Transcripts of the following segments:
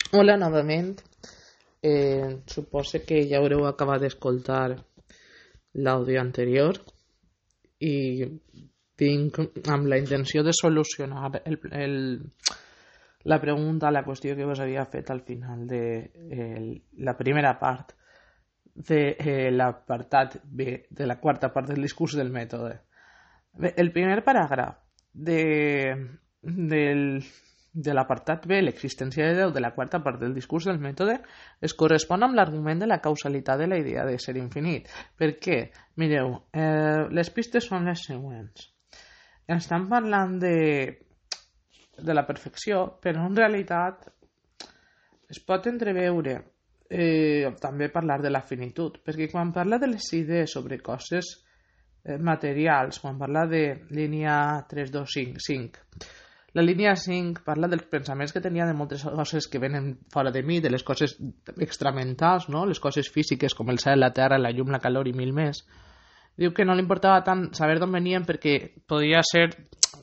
Hola novament. Suposo que ja haureu acabat d'escoltar l'àudio anterior i vinc amb la intenció de solucionar la pregunta, la qüestió que us havia fet al final de la primera part de l'apartat B de la quarta part del discurs del mètode. Bé, el primer paràgraf de l'apartat B, l'existència de Déu, de la quarta part del discurs del mètode, es correspon amb l'argument de la causalitat de la idea de ser infinit. Per què? Mireu, les pistes són les següents. Estan parlant de la perfecció, però en realitat es pot entreveure també parlar de la finitud, perquè quan parla de les idees sobre coses materials, quan parla de línia 3, 2, 5, 5, la línia 5 parla dels pensaments que tenia de moltes coses que venen fora de mi, de les coses extramentals, no? Les coses físiques com el cel, la terra, la llum, la calor i mil més. Diu que no li importava tant saber d'on venien perquè podia ser,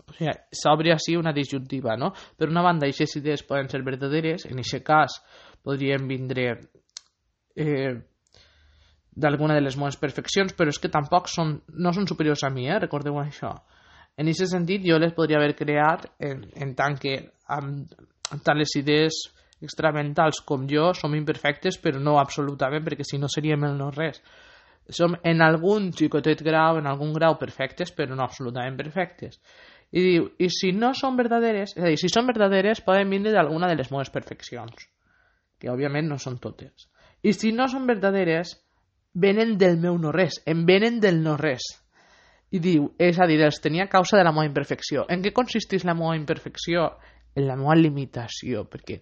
o sigui, s'obre així una disjuntiva, no? Per una banda, aquestes idees poden ser verdaderes, en aquest cas podrien vindre d'alguna de les meves perfeccions, però és que tampoc no són superiors a mi, recordeu això. En aquest sentit, jo les podria haver creat en tant que amb tant les idees extramentals com jo som imperfectes, però no absolutament, perquè si no seríem el no res. Som en algun xicotet grau, en algun grau perfectes, però no absolutament perfectes. I diu, i si no són verdaderes, és a dir, si són verdaderes poden vindre d'alguna de les meves perfeccions, que òbviament no són totes. I si no són verdaderes, venen del meu no res, em venen del no res. I diu, és a dir, els tenia a causa de la meva imperfecció. En què consisteix la meva imperfecció? En la meva limitació, perquè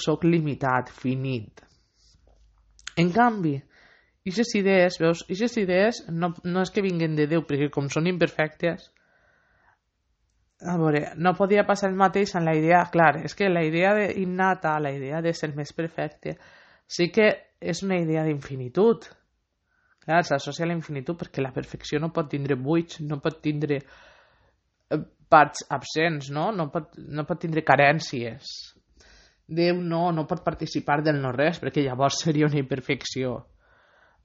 soc limitat, finit. En canvi, aquestes idees, veus, aquestes idees no és que vinguen de Déu, perquè com són imperfectes, a veure, no podia passar el mateix en la idea, clar, és que la idea innata, la idea de ser més perfecte, sí que és una idea d'infinitud. Clar, s'associa a la infinitud perquè la perfecció no pot tindre buits, no pot tindre parts absents, no? No pot tindre carències. Déu no pot participar del no res perquè llavors seria una imperfecció.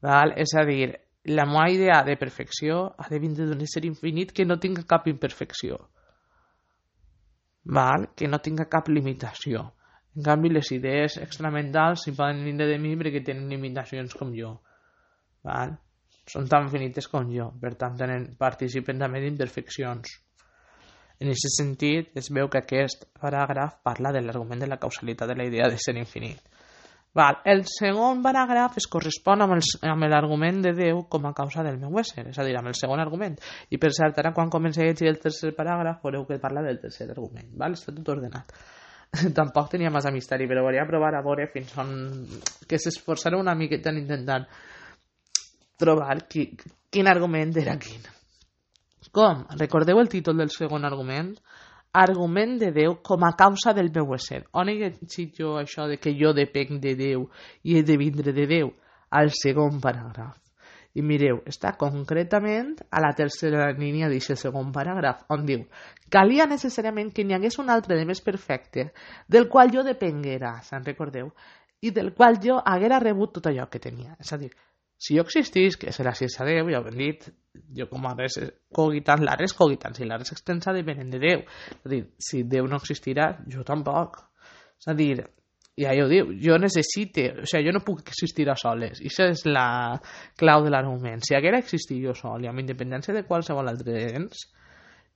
Val? És a dir, la meva idea de perfecció ha de vindre d'un ésser infinit que no tinga cap imperfecció. Val? Que no tinga cap limitació. En canvi, les idees extramentals si poden vindre de mi perquè tenen limitacions com jo. Val? Són tan finites com jo, per tant participen també d'imperfeccions. En aquest sentit, es veu que aquest paràgraf parla de l'argument de la causalitat de la idea de ser infinit. Val. El segon paràgraf es correspon amb l'argument de Déu com a causa del meu ésser, és a dir, amb el segon argument. I per cert, ara quan comenci a llegir el tercer paràgraf veureu que parla del tercer argument. Val? Està tot ordenat. Tampoc tenia massa misteri, però volia provar a veure fins on que s'esforçarà una miqueta en intentant trobar quin argument era quin. Com? Recordeu el títol del segon argument? Argument de Déu com a causa del meu ésser. On he llegit jo això de que jo depenc de Déu i he de vindre de Déu? Al segon paràgraf. I mireu, està concretament a la tercera línia d'aquest segon paràgraf, on diu: calia necessàriament que n'hi hagués un altre de més perfecte, del qual jo depenguera, se'n recordeu? I del qual jo haguera rebut tot allò que tenia. És a dir, si jo existís, que és gràcies a Déu, ja ho hem dit, jo com a res cogitant, la res cogitant, si la res extensa depenen de Déu. És a dir, si Déu no existirà, jo tampoc. És a dir, ja ho diu, jo necessite, o sigui, jo no puc existir a soles. I això és la clau de l'argument. Si haguera existit jo sol i amb independència de qualsevol altre ens,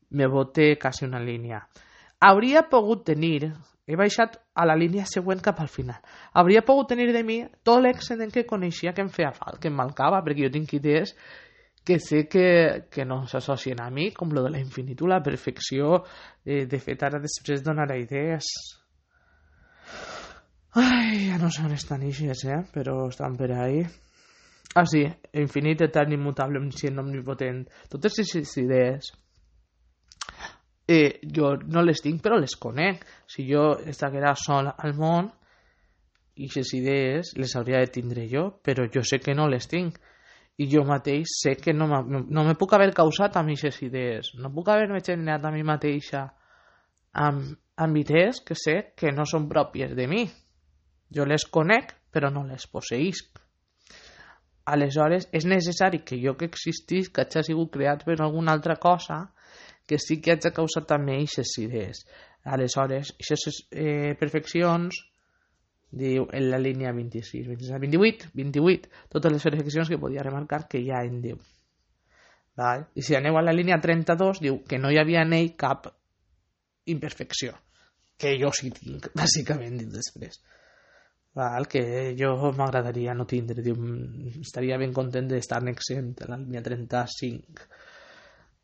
me bote quasi una línia. Hauria pogut tenir, he baixat a la línia següent cap al final, hauria pogut tenir de mi tot l'excedent que coneixia que em feia falta, que em mancava, perquè jo tinc idees que sé que no s'associen a mi, com lo de la infinitud, la perfecció. De fet, ara després donaré idees. Ai, ja no sé on estan ixes, però estan per ahí. Ah, sí, infinit, etern, immutable, omniscient, omnipotent. Totes aquestes idees jo no les tinc, però les conec. Si jo estiguera sol al món, aquestes idees les hauria de tindre jo, però jo sé que no les tinc. I jo mateix sé que no me puc haver causat amb aquestes idees. No puc haver-me generat a mi mateixa amb amb idees que sé que no són pròpies de mi. Jo les conec, però no les posseïsc. Aleshores, és necessari que jo que existís, que hagi sigut creat per alguna altra cosa, que sí que hagi causat també aquestes idees. Aleshores, aquestes perfeccions, diu en la línia 26, 28, totes les perfeccions que podia remarcar que hi ha en Déu. Val? I si aneu a la línia 32, diu que no hi havia en ell cap imperfecció, que jo sí tinc, bàsicament, dit després. Val? Que jo m'agradaria no tindre, diu, estaria ben content d'estar-ne exempt a la línia 35.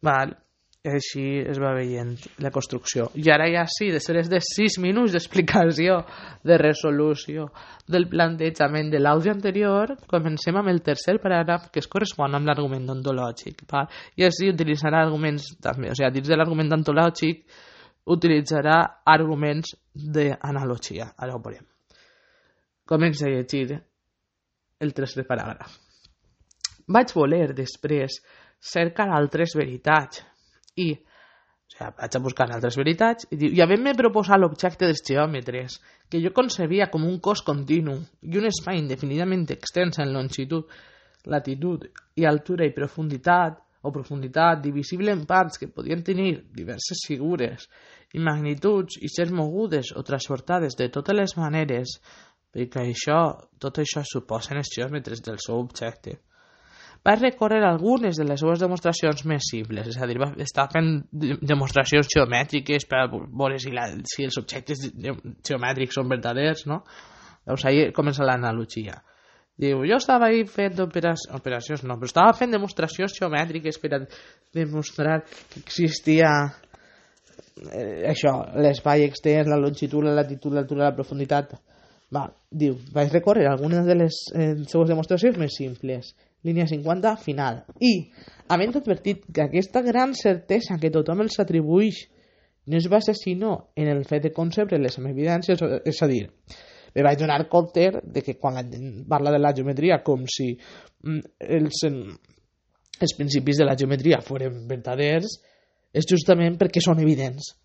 Val? Així es va veient la construcció. I ara ja sí, després de 6 minuts d'explicació, de resolució del plantejament de l'àudio anterior, comencem amb el tercer paràgraf, que es correspon amb l'argument ontològic. I així utilitzarà arguments també, o sigui, dins de l'argument ontològic utilitzarà arguments d'analogia. Ara ho veurem. Comença a llegir el tercer paràgraf. Vaig voler després cercar altres veritats i, vaig a buscar altres veritats i havent-me proposat l'objecte dels geòmetres, que jo concebia com un cos continu i un espai indefinidament extens en longitud, latitud i altura i profunditat, divisible en parts que podien tenir diverses figures i magnituds i ser mogudes o transportades de totes les maneres, perquè tot això suposen els geòmetres del seu objecte. Va recórrer algunes de les seves demostracions més simples, és a dir, va estar fent demostracions geomètriques per veure si els objectes geomètrics són verdaders, no? Llavors ahí comença l'analogia. Diu, jo estava ahí fent operacions, no, però estava fent demostracions geomètriques per a demostrar que existia això, l'espai extens, la longitud, la latitud, l'altura, la profunditat. Diu, vaig recórrer algunes de les seues demostracions més simples. Línia 50, final. I, havent advertit que aquesta gran certesa que tothom els atribueix no es basa sinó en el fet de concebre-les amb evidències, és a dir, me vaig donar compte de que quan la gent parla de la geometria com si els principis de la geometria foren verdaders, és justament perquè són evidents.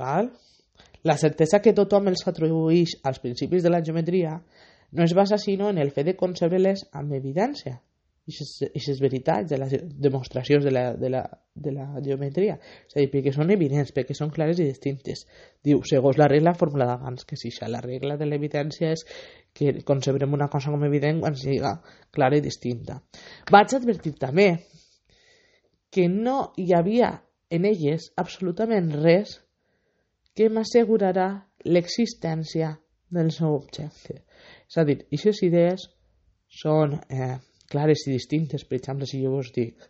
Val? La certesa que tothom els atribueix als principis de la geometria no es basa sinó en el fet de concebre-les amb evidència. I les veritats de les demostracions de la geometria, és a dir, perquè són evidents, perquè són clares i distintes. Diu, segons la regla formulada abans, que si la regla de l'evidència és que concebrem una cosa com evident quan sigui clara i distinta. Vaig advertir també que no hi havia en elles absolutament res que m'assegurarà l'existència del seu objecte. És a dir, aquestes idees són clares i distintes. Per exemple, si jo us dic,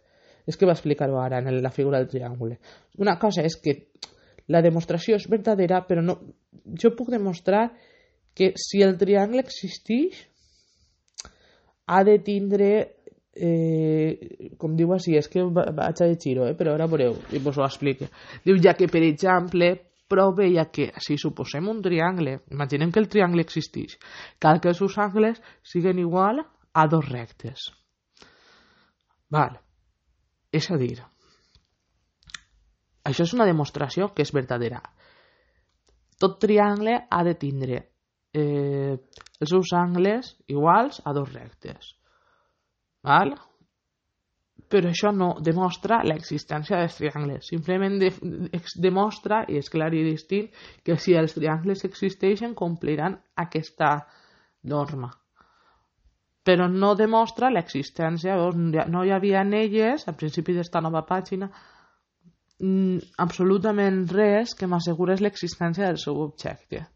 és que va explicar-ho ara en la figura del triangle. Una cosa és que la demostració és verdadera, però no, jo puc demostrar que si el triangle existeix ha de tindre com diu així, és que vaig a llegir-ho, però ara veureu i vos ho explico. Diu, ja que per exemple proveia que si suposem un triangle, imaginem que el triangle existeix, cal que els seus angles siguin igual a 2 rectes. Val. És a dir, això és una demostració que és verdadera. Tot triangle ha de tindre els seus angles iguals a 2 rectes. Val? Però això no demostra l'existència dels triangles. Simplement demostra, i és clar i distint, que si els triangles existeixen compliran aquesta norma. Però no demostra l'existència, no hi havia en elles, al principi d'esta nova pàgina, absolutament res que m'assegurés l'existència del seu objecte.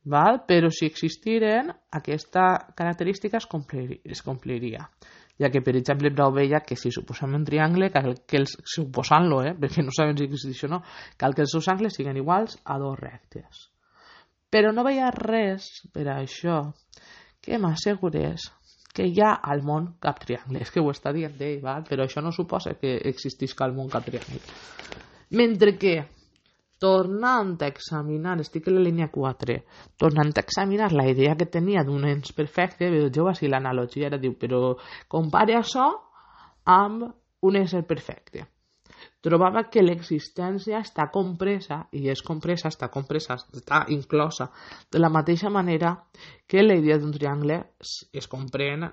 Val? Però si existiren, aquesta característica es compliria. Ja que, per exemple, prou veia que si suposem un triangle, suposant-lo, perquè no sabem si existeix o no, cal que els seus angles siguin iguals a 2 rectes. Però no veia res per a això que m'assegurés que hi ha al món cap triangle. És que ho està dient ell, però això no suposa que existisca al món cap triangle. Mentre que, tornant a examinar, estic a la línia 4, tornant a examinar la idea que tenia d'un ens perfecte, vegeu així l'analogia, diu, però compare això amb un ésser perfecte. trobava que l'existència està compresa, està inclosa, de la mateixa manera que la idea d'un triangle es comprèn,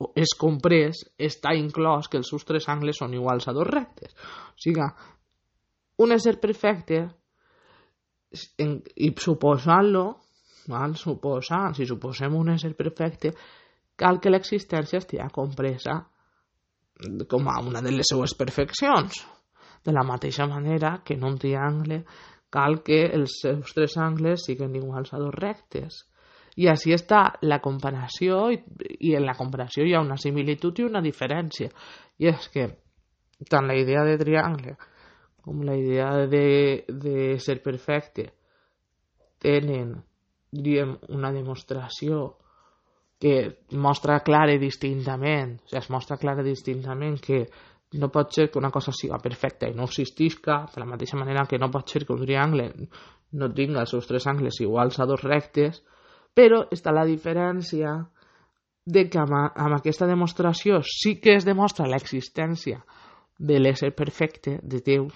o és comprès, està inclòs que els seus tres angles són iguals a dos rectes. O sigui, un ésser perfecte, i suposant-lo, si suposem un ésser perfecte, cal que l'existència estigui compresa com a una de les seues perfeccions. De la mateixa manera que en un triangle cal que els seus tres angles siguin iguals a dos rectes. I així està la comparació, i en la comparació hi ha una similitud i una diferència. I és que tant la idea de triangle com la idea de ser perfecte tenen, diríem, una demostració que mostra clara i distintament, es mostra clara i distintament que no pot ser que una cosa siga perfecta i no existisca, de la mateixa manera que no pot ser que un triangle no tinga els seus tres angles iguals a dos rectes, però està la diferència de que amb aquesta demostració sí que es demostra l'existència de l'ésser perfecte de Déu,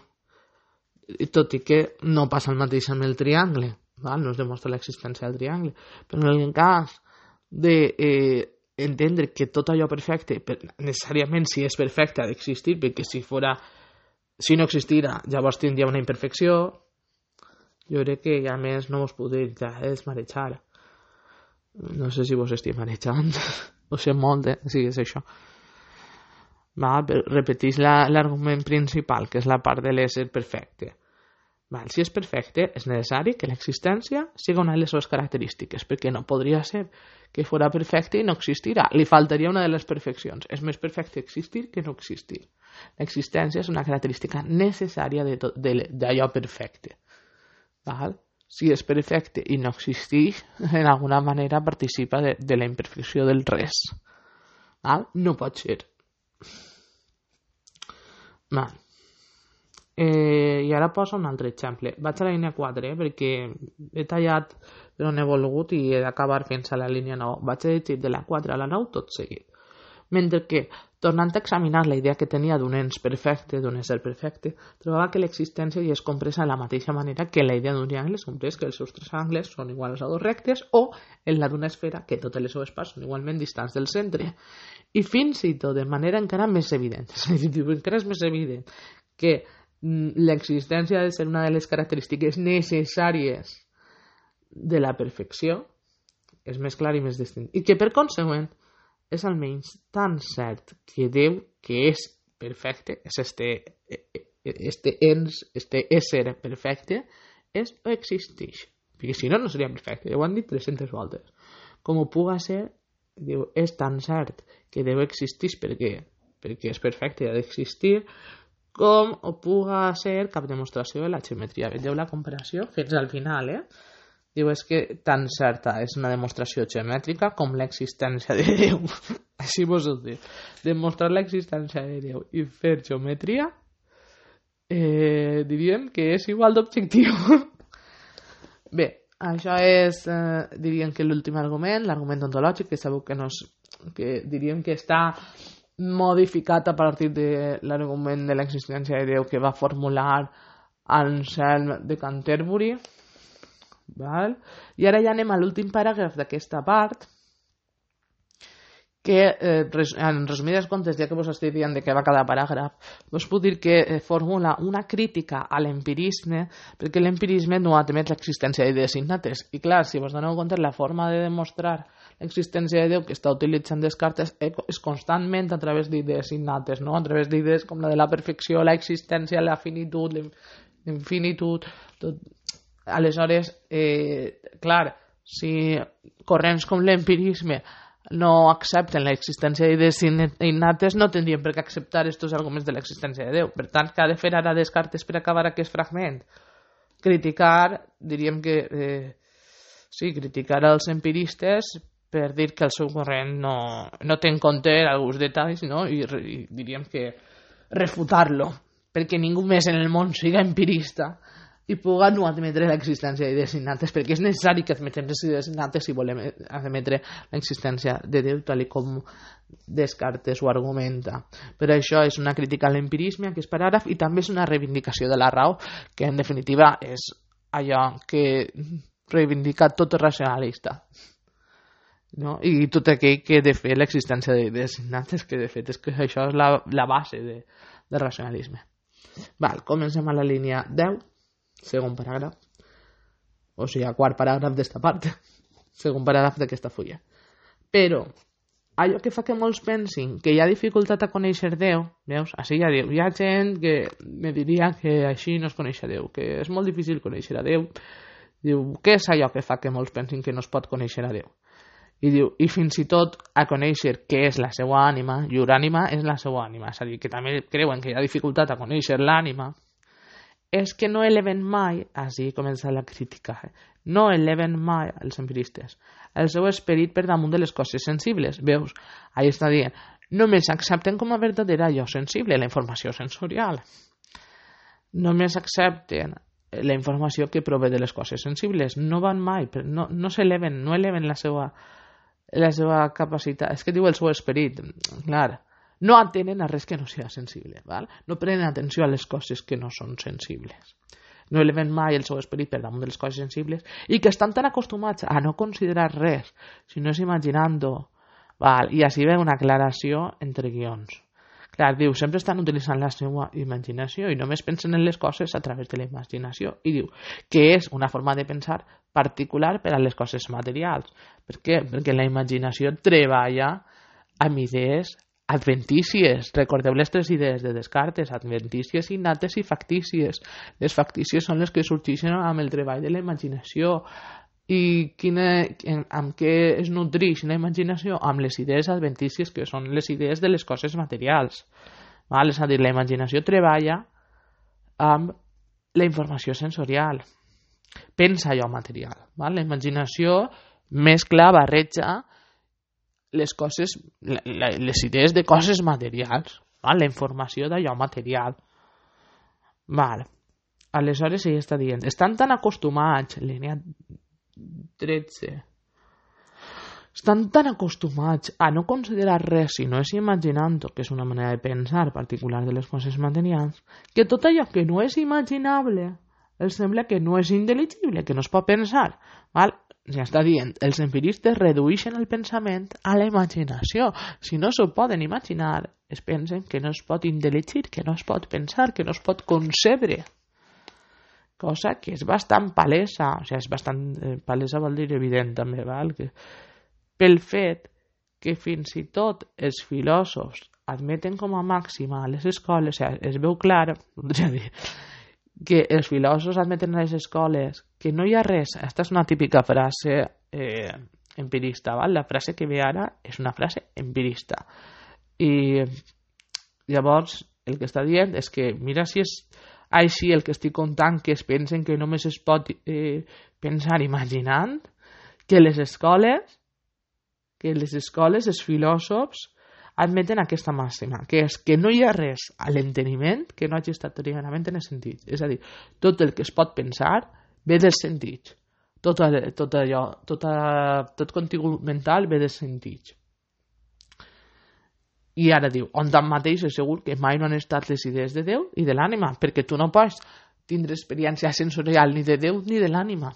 tot i que no passa el mateix amb el triangle, no es demostra l'existència del triangle, però en el cas d'entendre que tot allò perfecte, necessàriament si és perfecte ha d'existir, perquè si no existira llavors tindria una imperfecció, jo crec que a més no vos podeu desmarejar. No sé si vos estic marejant, ho sé molt, sí, és això. Repeteix l'argument principal, que és la part de l'ésser perfecte. Si és perfecte, és necessari que l'existència sigui una de les seves característiques, perquè no podria ser que fos perfecte i no existirà. Li faltaria una de les perfeccions. És més perfecte existir que no existir. L'existència és una característica necessària d'allò perfecte. Si és perfecte i no existeix, en alguna manera participa de la imperfecció del res. No pot ser. I ara poso un altre exemple. Vaig a la línia 4, perquè he tallat però no he volgut i he d'acabar fins a la línia 9. Vaig a llegir de la 4 a la 9 tot seguit. Mentre que, tornant a examinar la idea que tenia d'un ens perfecte, d'un ésser perfecte, trobava que l'existència hi és compresa de la mateixa manera que la idea d'un triangle és comprès que els seus tres angles són iguals a dos rectes, o en la d'una esfera que totes les seves parts són igualment distants del centre. I fins i tot de manera encara més evident, encara és més evident que l'existència ha de ser una de les característiques necessàries de la perfecció, és més clar i més distint. I que per consegüent és almenys tan cert que Déu, que és perfecte, és este ésser perfecte, és o existeix. Perquè si no, no seria perfecte. Ja ho han dit 300 voltes. Com ho puga ser, diu, és tan cert que Déu existeix perquè és perfecte i ha d'existir, com ho puga ser cap demostració de la geometria. Veieu la comparació fins al final, Diu, és que tan certa és una demostració geomètrica com l'existència de Déu. Així vos ho dic. Demostrar l'existència de Déu i fer geometria diríem que és igual d'objectiu. Bé, això és, diríem que l'últim argument, l'argument ontològic, que sabeu que diríem que està modificat a partir de l'argument de l'existència de Déu que va formular Anselm de Canterbury. I ara ja anem a l'últim paràgraf d'aquesta part, que en resumides comptes, ja que vos estic dient de què va cada paràgraf, vos puc dir que formula una crítica a l'empirisme, perquè l'empirisme no admet l'existència d'idees innates. I clar, si vos doneu compte, la forma de demostrar l'existència de Déu que està utilitzant Descartes és constantment a través d'idees innates, no? A través d'idees com la de la perfecció, l'existència, la finitud, l'infinitud, tot. Aleshores, clar, si corrents com l'empirisme no accepten l'existència d'idees innates, no tindrien per què acceptar aquests arguments de l'existència de Déu. Per tant, què ha de fer ara Descartes per acabar aquest fragment? Criticar, diríem que criticar els empiristes per dir que el seu corrent no té en compte alguns detalls, no? I diríem que refutar-lo, perquè ningú més en el món siga empirista i puguen no admetre l'existència d'idees innates, perquè és necessari que admetem les idees innates si volem admetre l'existència de Déu, tal com Descartes ho argumenta. Per això és una crítica a l'empirisme, aquest paràgraf, i també és una reivindicació de la raó, que en definitiva és allò que reivindica tot racionalista, no? I tot aquell que de fet l'existència d'idees innates, que de fet és que això és la base del racionalisme. Comencem a la línia 10, segon paràgraf, o sigui, quart paràgraf d'esta part, segon paràgraf d'aquesta fulla. Però allò que fa que molts pensin que hi ha dificultat a conèixer Déu, veus? Així ja diu, hi ha gent que me diria que així no es coneix a Déu, que és molt difícil conèixer a Déu. Diu, què és allò que fa que molts pensin que no es pot conèixer a Déu? I diu, i fins i tot a conèixer què és la seva ànima, llur ànima és la seva ànima, és a dir, que també creuen que hi ha dificultat a conèixer l'ànima, és que no eleven mai, així comença la crítica, no eleven mai els empiristes el seu esperit per damunt de les coses sensibles. Veus? Ahí està dient, només accepten com a verdadera allò sensible, la informació sensorial. Només accepten la informació que prové de les coses sensibles. No van mai, no s'eleven, no eleven la seva capacitat. És que diu el seu esperit, clar. No atenen a res que no sigui sensible, val? No prenen atenció a les coses que no són sensibles. No eleven mai el seu esperit per damunt de les coses sensibles i que estan tan acostumats a no considerar res, sinó és imaginant-ho. I així ve una aclaració entre guions. Clar, diu, sempre estan utilitzant la seva imaginació i només pensen en les coses a través de la imaginació. I diu que és una forma de pensar particular per a les coses materials. Per què? Perquè la imaginació treballa amb idees adventícies. Recordeu les tres idees de Descartes, adventícies, innates i factícies. Les factícies són les que sorgeixen amb el treball de la imaginació. I amb què es nutreix la imaginació? Amb les idees adventícies, que són les idees de les coses materials. És a dir, la imaginació treballa amb la informació sensorial. Pensa allò material. La imaginació mescla, barreja les coses, les idees de coses materials, la informació d'allò material. Aleshores ell està dient, estan tan acostumats, línia 13, estan tan acostumats a no considerar res si no és imaginant-ho, que és una manera de pensar particular de les coses materials, que tot allò que no és imaginable els sembla que no és intel·ligible, que no es pot pensar. Ja està dient, els empiristes redueixen el pensament a la imaginació. Si no s'ho poden imaginar, es pensen que no es pot intel·ligir, que no es pot pensar, que no es pot concebre. Cosa que és bastant palesa, o sigui, és bastant palesa vol dir evident també, que pel fet que fins i tot els filòsofs admeten com a màxima a les escoles, o sigui, es veu clar, podria dir, que els filòsofs admeten a les escoles que no hi ha res. Aquesta és una típica frase empirista, la frase que ve ara és una frase empirista, i llavors el que està dient és que mira si és així el que estic contant, que es pensen que només es pot pensar imaginant, que les escoles, els filòsofs admeten aquesta màxima, que és que no hi ha res a l'enteniment que no hagi estat originalment en els sentits. És a dir, tot el que es pot pensar ve dels sentits. Tot contingut mental ve dels sentits. I ara diu, on tanmateix és segur que mai no han estat les idees de Déu i de l'ànima, perquè tu no pots tindre experiència sensorial ni de Déu ni de l'ànima.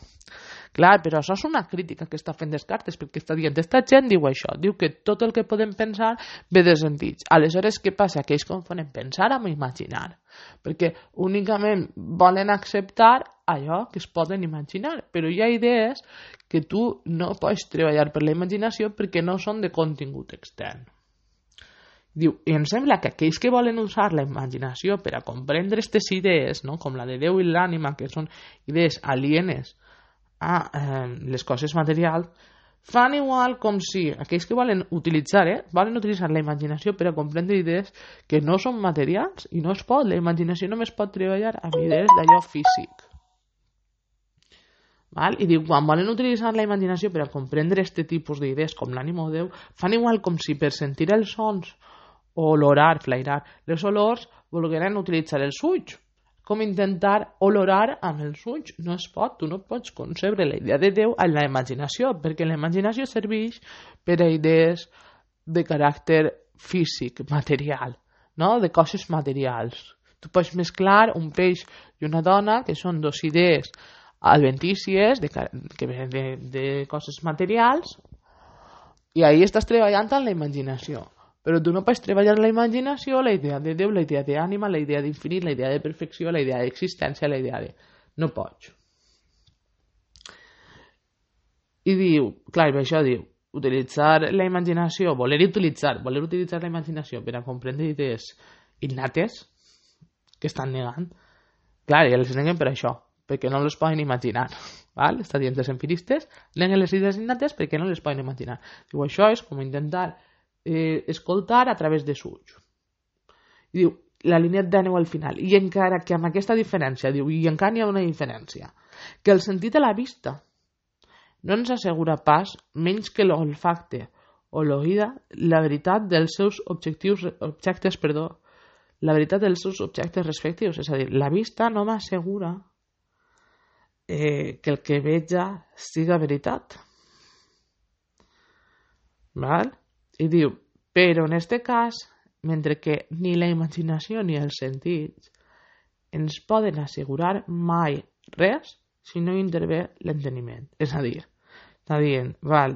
Clar, però això és una crítica que està fent Descartes, perquè està dient, aquesta gent diu això, diu que tot el que podem pensar ve de sentits. Aleshores, què passa? Que ells confonen pensar amb imaginar, perquè únicament volen acceptar allò que es poden imaginar, però hi ha idees que tu no pots treballar per la imaginació perquè no són de contingut extern. Diu, i em sembla que aquells que volen usar la imaginació per a comprendre aquestes idees, no? Com la de Déu i l'ànima, que són idees alienes a les coses materials, fan igual com si aquells que volen utilitzar la imaginació per a comprendre idees que no són materials i no es pot, la imaginació només pot treballar amb idees d'allò físic. I diu, quan volen utilitzar la imaginació per a comprendre aquest tipus d'idees com l'ànima o Déu, fan igual com si per sentir els sons o olorar, flairar les olors volgueren utilitzar els ulls, com intentar olorar amb els ulls. No es pot, tu no pots concebre la idea de Déu en la imaginació, perquè la imaginació serveix per a idees de caràcter físic, material, no? De coses materials. Tu pots mesclar un peix i una dona, que són dos idees adventícies que venen de coses materials, i ahí estàs treballant en la imaginació. Però tu no pots treballar la imaginació, la idea de Déu, la idea d'ànima, la idea d'infinit, la idea de perfecció, la idea d'existència, la idea de... No pots. I diu, clar, això diu, utilitzar la imaginació, voler utilitzar la imaginació per a comprendre idees innates que estan negant. Clar, i els neguen per això, perquè no les poden imaginar. Val? Està dient els empiristes, neguen les idees innates perquè no les poden imaginar. Diu, això és com intentar escoltar a través de ulls. I diu, la línia d'àneu al final. I encara que amb aquesta diferència, diu, i encara n'hi ha una diferència, que el sentit de la vista no ens assegura pas, menys que l'olfacte o l'oïda, la veritat dels seus la veritat dels seus objectes respectius. És a dir, la vista no m'assegura que el que veja siga veritat. Val? I diu, però en este cas, mentre que ni la imaginació ni els sentits ens poden assegurar mai res si no intervé l'enteniment. És a dir, està dient, val,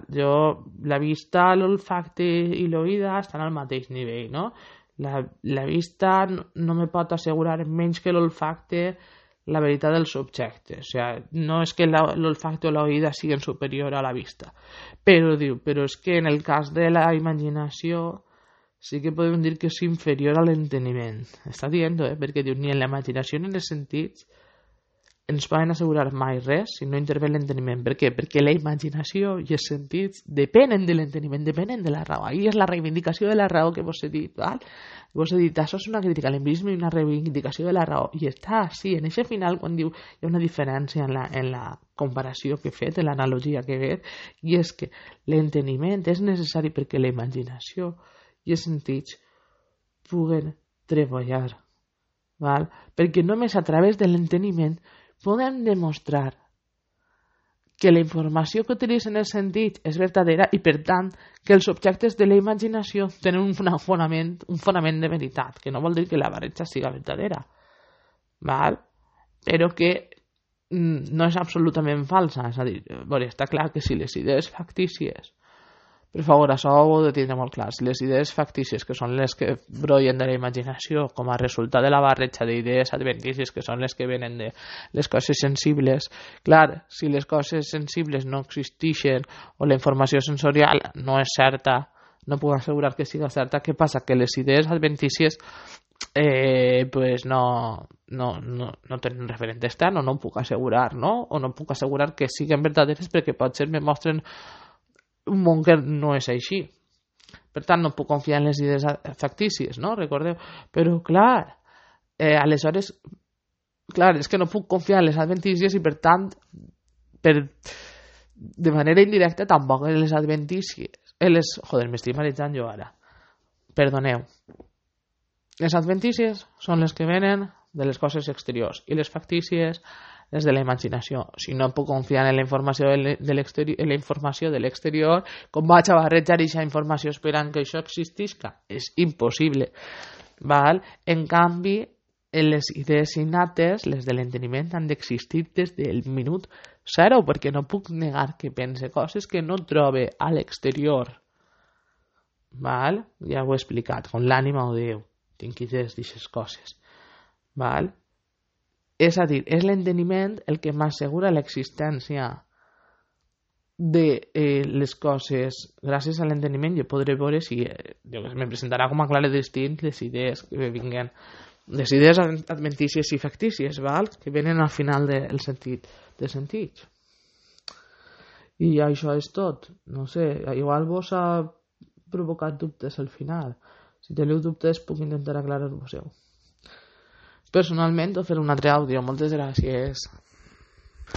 la vista, l'olfacte i l'oïda estan al mateix nivell, no? La vista no me pot assegurar menys que l'olfacte la veritat dels objectes. O sigui, no és que l'olfacte o l'oïda siguin superior a la vista. Però diu, però és que en el cas de la imaginació sí que podem dir que és inferior a l'enteniment. Està dient, perquè diu, ni en la imaginació ni en els sentits ens poden assegurar mai res si no intervé l'enteniment. Per què? Perquè la imaginació i els sentits depenen de l'enteniment, depenen de la raó. Ahí és la reivindicació de la raó que vos he dit. Val? Vos he dit, això és una crítica a l'empirisme i una reivindicació de la raó. I està així, en aquest final, quan diu hi ha una diferència en la comparació que he fet, en l'analogia que he fet, i és que l'enteniment és necessari perquè la imaginació i els sentits puguen treballar. Val? Perquè només a través de l'enteniment podem demostrar que la informació que utilitzen els sentits és verdadera i, per tant, que els objectes de la imaginació tenen un fonament de veritat, que no vol dir que la barreja siga verdadera, val? Però que no és absolutament falsa. És a dir, està clar que si les idees factícies, per favor, això ho heu de tindre molt clar, si les idees factícies, que són les que brollen de la imaginació com a resultat de la barreja d'idees adventícies, que són les que venen de les coses sensibles, clar, si les coses sensibles no existeixen o la informació sensorial no és certa, no puc assegurar que siga certa, què passa? Que les idees adventícies pues no tenen referent extern, o no ho puc assegurar, no? O no puc assegurar que siguin verdaderes perquè potser me mostren un món que no és així. Per tant, no puc confiar en les idees factícies, no? Recordeu? Però, clar, aleshores, clar, és que no puc confiar en les adventícies i, per tant, de manera indirecta, tampoc en les adventícies. Joder, m'estic marejant jo ara. Perdoneu. Les adventícies són les que venen de les coses exteriors i les factícies les de la imaginació. Si no puc confiar en la informació de l'exterior, com vaig a barrejar aquesta informació esperant que això existisca? És impossible. Val? En canvi, les idees innates, les de l'enteniment, han d'existir des del minut zero, perquè no puc negar que pense coses que no trobe a l'exterior. Val? Ja ho he explicat, com l'ànima o Déu. Tinc idees d'aquestes coses. Val? És a dir, és l'enteniment el que m'assegura l'existència de les coses. Gràcies a l'enteniment jo podré veure si me presentarà com a clar i distint les idees que vinguen, les idees adventícies i factícies, val? Que venen al final del sentit de sentits. I això és tot. No sé, igual vos ha provocat dubtes al final. Si teniu dubtes puc intentar aclarar-vos-ho. Personalment, o fer un altre àudio. Moltes gràcies.